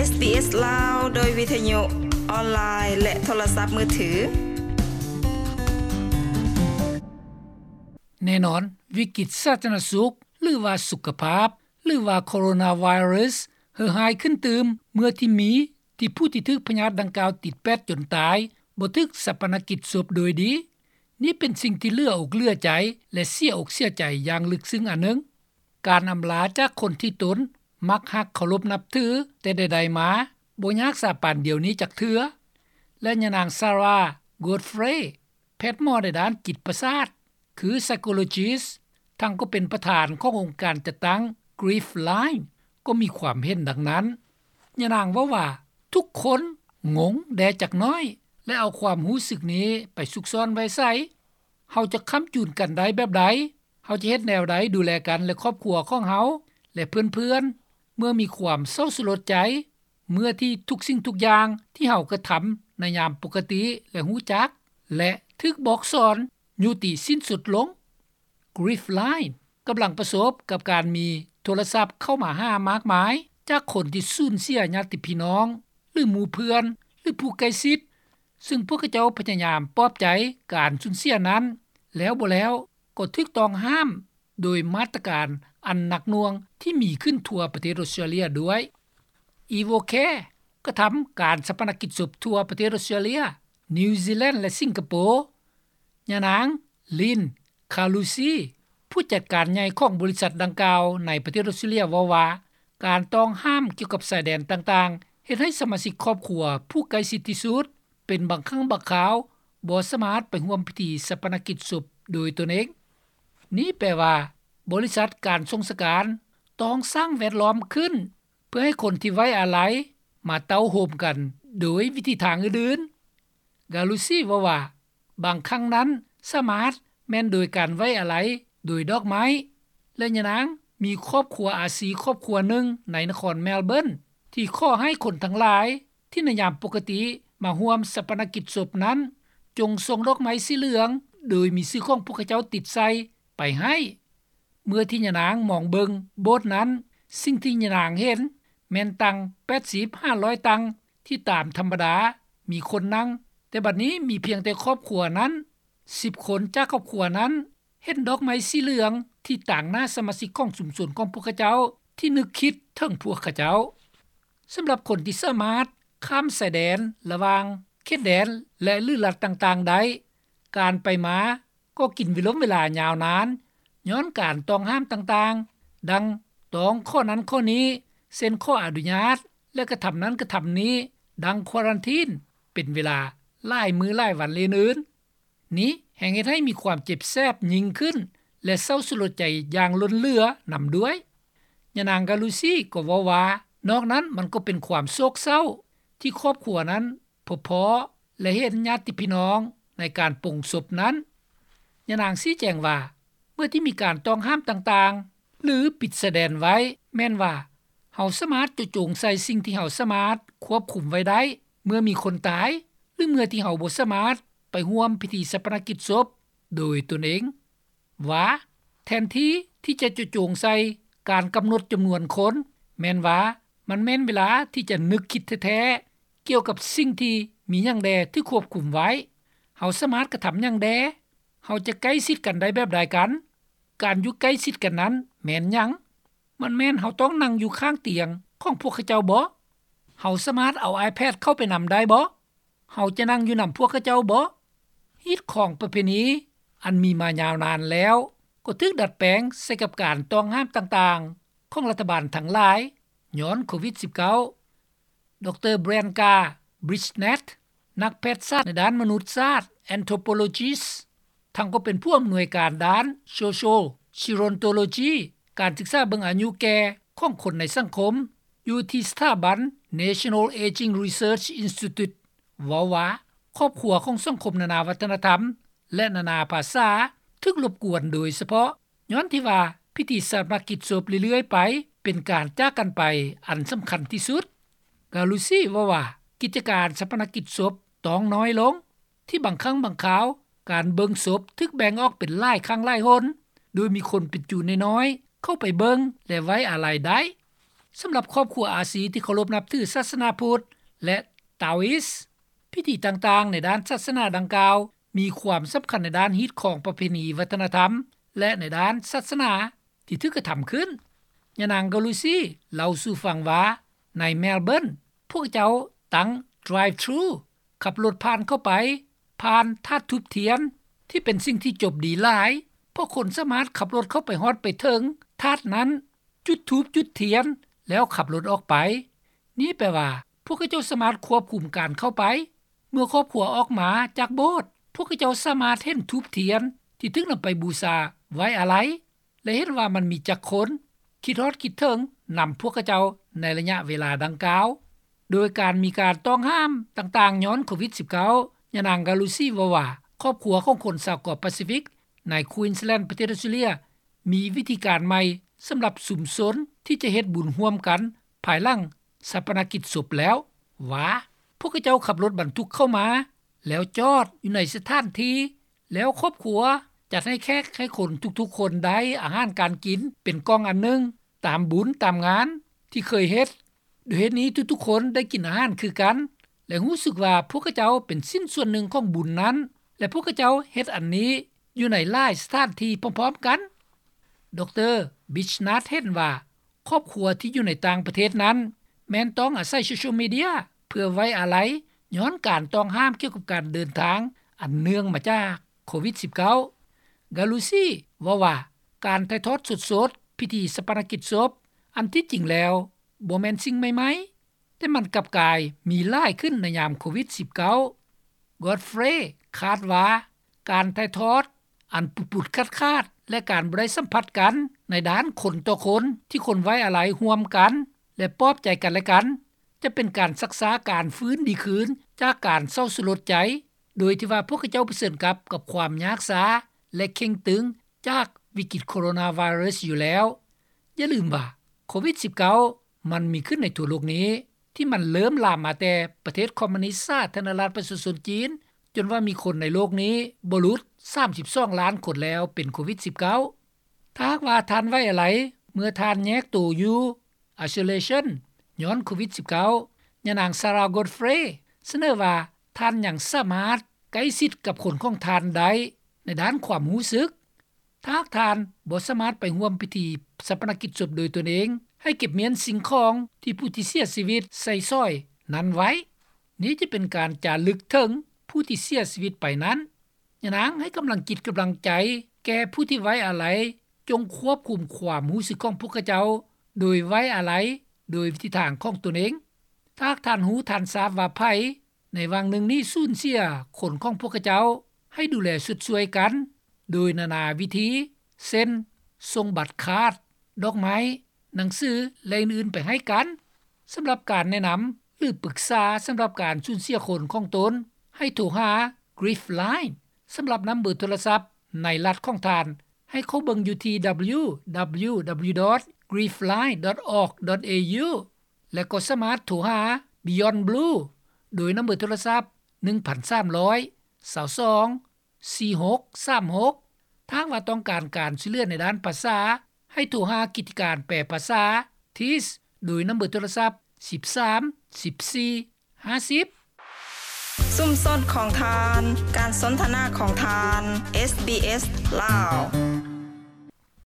ເອສ ລາວ ໂດຍວິທະຍຸອອນລາຍ ແລະ ໂທລະສັບມືຖື. ແນ່ນອນ, ວິກິດສາທາລະນະສຸກ ຫຼືວ່າສຸຂະພາບ ຫຼືວ່າໂຄໂຣນາໄວຣັສ ເຫື່ອຫາຍຂຶ້ນຕື່ມ ເມື່ອທີ່ມີທີ່ຜູ້ທີ່ຖືກພະຍາດດັ່ງກ່າວຕິດແປດຈົນຕາຍ ບໍ່ຖືກສາປະນະກິດສົບໂດຍດີ. ນີ້ເປັນສິ່ງທີ່ເຫຼືອອົກເຫຼືອໃຈ ແລະ ເສຍອົກເສຍໃຈຢ່າງເລິກເຊິ່ງອັນໜຶ່ງ. ການອຳລາຈາກຄົນທີ່ຕົນມັກຮັກເຄົາລົບນັບຖືແຕ່ໃດໆມາ ບໍ່ຍາກສາປານດຽວນີ້ຈັກເທື່ອ. ແລະ ຍານາງ Sarah Godfrey ແພດໝໍໃນດ້ານຈິດປະສາດ ຄື psychologist ທັງກໍເປັນປະທານຂອງອົງການຈັດຕັ້ງ Grief Line ກໍມີຄວາມເຫັນດັ່ງນັ້ນ. ຍານາງເວົ້າວ່າ ທຸກຄົນງົງແດ່ຈັກໜ້ອຍ ແລະ ເອົາຄວາມຮູ້ສຶກນີ້ໄປຊຸກຊ້ອນໄວ້ໃສ? ເຮົາຈະຄ້ຳຈູນກັນໄດ້ແບບໃດ? ເຮົາຈະເຮັດແນວໃດດູແລກັນ ແລະ ຄອບຄົວຂອງເຮົາ ແລະ ເພື່ອນໆ ເມື່ອມີຄວາມເສົ້າສະຫຼົດໃຈ ເມື່ອທີ່ທຸກສິ່ງທຸກຢ່າງທີ່ເຮົາກະທຳໃນຍາມປົກກະຕິ ແລະ ຮູ້ຈັກ ແລະ ຖືກບອກສອນ ຍຸຕິສິ້ນສຸດລົງ. Grief Line ກຳລັງປະສົບກັບການມີໂທລະສັບເຂົ້າມາຫາມາກມາຍ ຈາກຄົນທີ່ສູນເສຍຍາດຕິພີ່ນ້ອງ ຫຼື ໝູ່ເພື່ອນ ຫຼື ຜູ້ໃກ້ຊິດ, ຊຶ່ງພວກເຂົາເຈົ້າພະຍາຍາມປອບໃຈການສູນເສຍນັ້ນ ແລ້ວບໍ່ແລ້ວກໍຖືກຕ້ອງຫ້າມໂດຍມາດຕະການອັນໜັກໜ່ວງທີ່ມີຂຶ້ນທົ່ວປະເທດອົດສະຕຣາເລຍດ້ວຍ. EvoCare ກະທຳການສາປະນະກິດສົບທົ່ວປະເທດອົດສະຕຣາເລຍ, ນິວຊີແລນ ແລະ ສິງກະໂປ. ຍານາງ Lynn Calusi ຜູ້ຈັດການໃຫຍ່ຂອງບໍລິສັດດັ່ງກ່າວໃນປະເທດອົດສະຕຣາເລຍເວົ້າວ່າ ການຕ້ອງຫ້າມກ່ຽວກັບຊາຍແດນຕ່າງໆ ເຮັດໃຫ້ສະມາຊິກຄອບຄົວຜູ້ໃກ້ຊິດທີ່ສຸດ ເປັນບາງຄັ້ງບາງຄາວບໍ່ສາມາດໄປຮ່ວມພິທີສາປະນະກິດສົບໂດຍຕົນເອງ. ນີ້ແປວ່າ ບໍລິສັດການສົ່ງສະການຕ້ອງສ້າງແວດລ້ອມຂຶ້ນ ເພື່ອໃຫ້ຄົນທີ່ໄວ້ອາໄລມາເຕົ້າໂຮມກັນໂດຍວິທີທາງອື່ນໆ. Calusi ເວົ້າວ່າ ບາງຄັ້ງນັ້ນສາມາດແມ່ນໂດຍການໄວ້ອາໄລໂດຍດອກໄມ້ ແລະ ຍານາງມີຄອບຄົວອາຊີຄອບຄົວໜຶ່ງໃນນະຄອນ Melbourne ທີ່ຂໍໃຫ້ຄົນທັງຫຼາຍທີ່ໃນຍາມປົກກະຕິມາຮ່ວມສາປະນະກິດສົບນັ້ນ ຈົ່ງສົ່ງດອກໄມ້ສີເຫຼືອງໂດຍມີຊື່ຂອງພວກເຂົາເຈົ້າຕິດໃສ່ໄປໃຫ້. ເມື່ອທີ່ຍານາງມອງເບິ່ງໂບດນັ້ນ, ສິ່ງທີ່ຍານາງເຫັນແມ່ນຕັ່ງແປດສິບຫາຮ້ອຍຕັ່ງທີ່ຕາມທຳມະດາມີຄົນນັ່ງ, ແຕ່ບັດນີ້ມີພຽງແຕ່ຄອບຄົວນັ້ນ ສິບຄົນຈາກຄອບຄົວນັ້ນເຫັນດອກໄມ້ສີເຫຼືອງທີ່ຕາງໜ້າສະມາຊິກຂອງຊຸມຊົນຂອງພວກເຂົາເຈົ້າທີ່ນຶກຄິດເຖິງພວກເຂົາເຈົ້າ. ສຳລັບຄົນທີ່ສາມາດຂ້າມຊາຍແດນລະຫວ່າງເຂດແດນ ແລະ ຫຼືລັດຕ່າງໆໄດ້, ການໄປມາ ກໍກິນເວລົມເວລາຍາວນານ ຍ້ອນການຕ້ອງຫ້າມຕ່າງໆ ດັ່ງຕ້ອງຂໍ້ນັ້ນຂໍ້ນີ້ ເຊັ່ນ ຂໍອະນຸຍາດ ແລະ ກະທຳນັ້ນກະທຳນີ້ ດັ່ງຄວາຣັນທີນ ເປັນເວລາຫຼາຍມື້ຫຼາຍວັນ ແລະ ອື່ນໆ. ນີ້ແຮ່ງເຮັດໃຫ້ມີຄວາມເຈັບແສບຍິ່ງຂຶ້ນ ແລະ ເສົ້າສະຫຼົດໃຈຢ່າງລົ້ນເຫຼືອນຳດ້ວຍ. ຍານາງ Calusi ກໍເວົ້າວ່າ ນອກນັ້ນມັນກໍເປັນຄວາມໂສກເສົ້າ ທີ່ຄອບຄົວນັ້ນ ພົບພໍ້ ແລະ ເຫັນຍາດຕິພີ່ນ້ອງໃນການປົງສົບນັ້ນ. ຍານາງຊີ້ແຈງວ່າ ເມື່ອທີ່ມີການຕ້ອງຫ້າມຕ່າງໆ ຫຼື ປິດຊາຍແດນໄວ້ ແມ່ນວ່າເຮົາສາມາດເຈາະຈົງໃສ່ສິ່ງທີ່ເຮົາສາມາດຄວບຄຸມໄວ້ໄດ້ ເມື່ອມີຄົນຕາຍ ຫຼື ເມື່ອທີ່ເຮົາບໍ່ສາມາດໄປຮ່ວມພິທີສາປະນະກິດສົບໂດຍຕົນເອງ. ວ່າ ແທນທີ່ທີ່ຈະເຈາະຈົງໃສ່ການກຳນົດຈຳນວນຄົນ, ແມ່ນວ່າມັນແມ່ນເວລາທີ່ຈະນຶກຄິດແທ້ໆ ກ່ຽວກັບສິ່ງທີ່ມີຫຍັງແດ່ຖືກຄວບຄຸມໄວ້, ເຮົາສາມາດກະທຳຫຍັງແດ່, ເຮົາຈະໃກ້ຊິດກັນໄດ້ແບບໃດກັນ, ການຢູ່ໃກ້ຊິດກັນນັ້ນແມ່ນຫຍັງ? ມັນແມ່ນເຮົາຕ້ອງນັ່ງຢູ່ຂ້າງຕຽງຂອງພວກເຂົາເຈົ້າບໍ? ເຮົາສາມາດເອົາ iPad ເຂົ້າໄປນຳໄດ້ບໍ? ເຮົາຈະນັ່ງຢູ່ນຳພວກເຂົາເຈົ້າບໍ? ຮີດຄອງປະເພນີອັນມີມາຍາວນານແລ້ວ ກໍຖືກດັດແປງໃສ່ກັບການຕ້ອງຫ້າມຕ່າງໆຂອງລັດຖະບານທັງຫຼາຍ ຍ້ອນໂຄວິດສິບເກົ້າ. ດຣ Branka Brisnat ນັກແພດສາດໃນດ້ານມະນຸດສາດ Anthropologist ທັງກໍເປັນຜູ້ອຳນວຍການດ້ານ Social Gerontology ການສຶກສາເບິ່ງອາຍຸແກ່ຂອງຄົນໃນສັງຄົມ ຢູ່ທີ່ສະຖາບັນ National Aging Research Institute ເວົ້າວ່າ ຄອບຄົວຂອງສັງຄົມນານາວັດທະນະທຳ ແລະ ນານາພາສາ ຖືກລົບກວນໂດຍສະເພາະ ຍ້ອນທີ່ວ່າພິທີຊາປະນະກິດສົບເລື້ອຍໆໄປ ເປັນການຈາກກັນໄປອັນສຳຄັນທີ່ສຸດ. Calusi ເວົ້າວ່າ ກິດຈະການຊາປະນະກິດສົບຕ້ອງນ້ອຍລົງ ທີ່ບາງຄັ້ງບາງຄາວ ການເບິ່ງສົບຖືກແບ່ງອອກເປັນຫຼາຍຄັ້ງຫຼາຍຫົນ ໂດຍມີຄົນເປັນຈູ່ນ້ອຍໆເຂົ້າໄປເບິ່ງ ແລະ ໄວ້ອາໄລໄດ້. ສຳລັບຄອບຄົວອາຊີທີ່ເຄົາລົບນັບຖືສາສະໜາພຸດ ແລະ Taoist, ພິທີຕ່າງໆໃນດ້ານສາສະໜາດັ່ງກ່າວ ມີຄວາມສຳຄັນໃນດ້ານຮີດຄອງປະເພນີວັດທະນະທຳ ແລະ ໃນດ້ານສາສະໜາທີ່ຖືກກະທຳຂຶ້ນ. ຍານາງ Galusi ເລົ່າສູ່ຟັງວ່າ ໃນ Melbourne ພວກເຈົ້າຕັ້ງ drive-thru ຂັບລົດຜ່ານເຂົ້າໄປ ຜ່ານທາດທູບທຽນ ທີ່ເປັນສິ່ງທີ່ຈົບດີຫຼາຍ ເພາະຄົນສາມາດຂັບລົດເຂົ້າໄປຮອດໄປເຖິງທາດນັ້ນ ຈຸດທູບຈຸດທຽນ ແລ້ວຂັບລົດອອກໄປ. ນີ້ແປວ່າ ພວກເຂົາເຈົ້າສາມາດຄວບຄຸມການເຂົ້າໄປ. ເມື່ອຄອບຄົວອອກມາຈາກໂບດ ພວກເຂົາເຈົ້າສາມາດເຫັນທູບທຽນທີ່ຖືກນຳໄປບູຊາໄວ້ອາໄລ ແລະ ເຫັນວ່າມັນມີຈັກຄົນຄິດຮອດຄິດເຖິງນຳພວກເຂົາເຈົ້າໃນໄລຍະເວລາດັ່ງກ່າວ. ໂດຍການມີການຕ້ອງຫ້າມຕ່າງໆຍ້ອນໂຄວິດສິບເກົ້າ ຍານາງ Galusi ເວົ້າວ່າ ຄອບຄົວຂອງຄົນຊາວເກາະປາຊີຟິກໃນ Queensland ປະເທດອອສເຕຣເລັຽ ມີວິທີການໃໝ່ສຳລັບຊຸມຊົນທີ່ຈະເຮັດບຸນຮ່ວມກັນພາຍຫຼັງຊາປະນະກິດສົບແລ້ວ ວ່າ ພວກເຂົາເຈົ້າຂັບລົດບັນທຸກເຂົ້າມາ ແລ້ວຈອດຢູ່ໃນສະຖານທີ່ ແລ້ວຄອບຄົວຈັດໃຫ້ແຂກໃຫ້ຄົນທຸກໆຄົນໄດ້ອາຫານການກິນເປັນກ່ອງອັນໜຶ່ງ ຕາມບຸນຕາມງານທີ່ເຄີຍເຮັດ. ດ້ວຍເຫດນີ້ທຸກໆຄົນໄດ້ກິນອາຫານຄືກັນ ແລະ ຮູ້ສຶກວ່າພວກເຂົາເຈົ້າເປັນຊິ້ນສ່ວນໜຶ່ງຂອງບຸນນັ້ນ ແລະ ພວກເຂົາເຈົ້າເຮັດອັນນີ້ຢູ່ໃນຫຼາຍສະຖານທີ່ພ້ອມໆກັນ. ດຣ. Bisnath ເຫັນວ່າ ຄອບຄົວທີ່ຢູ່ໃນຕ່າງປະເທດນັ້ນ ແມ່ນຕ້ອງອາໄສໂຊຊຽວມີເດຍເພື່ອໄວ້ອາໄລ ຍ້ອນການຕ້ອງຫ້າມກ່ຽວກັບການເດີນທາງ ອັນເນື່ອງມາຈາກໂຄວິດສິບເກົ້າ. Galusi ເວົ້າວ່າ ການຖ່າຍທອດສົດໆພິທີຊາປະນະກິດສົບ ອັນທີ່ຈິງແລ້ວບໍ່ແມ່ນສິ່ງໃໝ່ໆ ແຕ່ມັນກັບກາຍມີຫຼາຍຂຶ້ນໃນຍາມໂຄວິດສິບເກົ້າ. Godfrey ຄາດວ່າ ການຖ່າຍທອດອັນປຸດໆຂາດໆ ແລະ ການບໍ່ໄດ້ສຳຜັດກັນໃນດ້ານຄົນຕໍ່ຄົນ ທີ່ຄົນໄວ້ອາໄລຮ່ວມກັນ ແລະ ປອບໃຈກັນແລະກັນ ຈະເປັນການຊັກຊ້າການຟື້ນດີຄືນຈາກການເສົ້າສະຫຼົດໃຈ ໂດຍທີ່ວ່າພວກເຂົາເຈົ້າປະເຊີນກັບ ກັບຄວາມຍາກຊ້າ ແລະ ເຄັ່ງຕຶງຈາກວິກິດໂຄໂຣນາໄວຣັສຢູ່ແລ້ວ. ຢ່າລືມວ່າ ໂຄວິດສິບເກົ້າ ມັນມີຂຶ້ນໃນທົ່ວໂລກນີ້ ທີ່ມັນເລີ່ມລາມມາແຕ່ປະເທດຄອມມູນິດສາທາລະນະລັດປະຊາຊົນຈີນ ຈົນວ່າມີຄົນໃນໂລກນີ້ບໍ່ຫຼຸດສາມສິບສອງລ້ານຄົນແລ້ວເປັນໂຄວິດສິບເກົ້າ. ຖ້າຫາກວ່າທ່ານໄວ້ອາໄລ ເມື່ອທ່ານແຍກໂຕຢູ່ isolation ຍ້ອນໂຄວິດສິບເກົ້າ ຍານາງ Sarah Godfrey ສະເໜີວ່າ ທ່ານຍັງສາມາດໃກ້ຊິດກັບຄົນຂອງທ່ານໄດ້ໃນດ້ານຄວາມຮູ້ສຶກ. ຖ້າຫາກທ່ານບໍ່ສາມາດໄປຮ່ວມພິທີຊາປະນະກິດສົບໂດຍຕົນເອງ, ໃຫ້ເກັບມ້ຽນສິ່ງຂອງທີ່ຜູ້ທີ່ເສຍຊີວິດໃສ່ສອຍນັ້ນໄວ້. ນີ້ຈະເປັນການຈາລຶກເຖິງຜູ້ທີ່ເສຍຊີວິດໄປນັ້ນ. ຍານາງໃຫ້ກຳລັງຈິດກຳລັງໃຈແກ່ຜູ້ທີ່ໄວ້ອາໄລ, ຈົ່ງຄວບຄຸມຄວາມຮູ້ສຶກຂອງພວກເຂົາເຈົ້າໂດຍໄວ້ອາໄລໂດຍວິທີທາງຂອງຕົນເອງ. ຖ້າຫາກທ່ານຮູ້ທ່ານຊາບວ່າໃຜ ໃນຫວ່າງໜຶ່ງນີ້ສູນເສຍຄົນຂອງພວກເຂົາເຈົ້າ, ໃຫ້ດູແລຊົດຊ່ວຍກັນໂດຍນານາວິທີ ເຊັ່ນ ສົ່ງບັດຄາດ, ດອກໄມ້, ໜັງສື ແລະ ອື່ນໆໄປໃຫ້ກັນ. ສຳລັບການແນະນຳ ຫຼື ປຶກສາສຳລັບການສູນເສຍຄົນຂອງຕົນ, ໃຫ້ໂທຫາ Grief Line ສຳລັບນຳເບີໂທລະສັບໃນລັດຂອງທ່ານ ໃຫ້ເຂົ້າເບິ່ງຢູ່ທີ່ www.griefline.org.au ແລະ ກໍສາມາດໂທຫາ Beyond Blue ໂດຍນຳເບີໂທລະສັບ ໜຶ່ງພັນສາມຮ້ອຍ ຊາວສອງ ສີ່ຫົກສາມຫົກ. ຖ້າຫາກວ່າຕ້ອງການການຊ່ວຍເຫຼືອໃນດ້ານພາສາ, ໃຫ້ໂທຫາກິດຈະການແປພາສາ TIS ໂດຍນຳເບີໂທລະສັບ ສິບສາມ ສິບສີ່ ຫ້າສິບ. ຊຸມຊົນຂອງທ່ານ, ການສົນທະນາຂອງທ່ານ, ເອສບີເອສ ລາວ.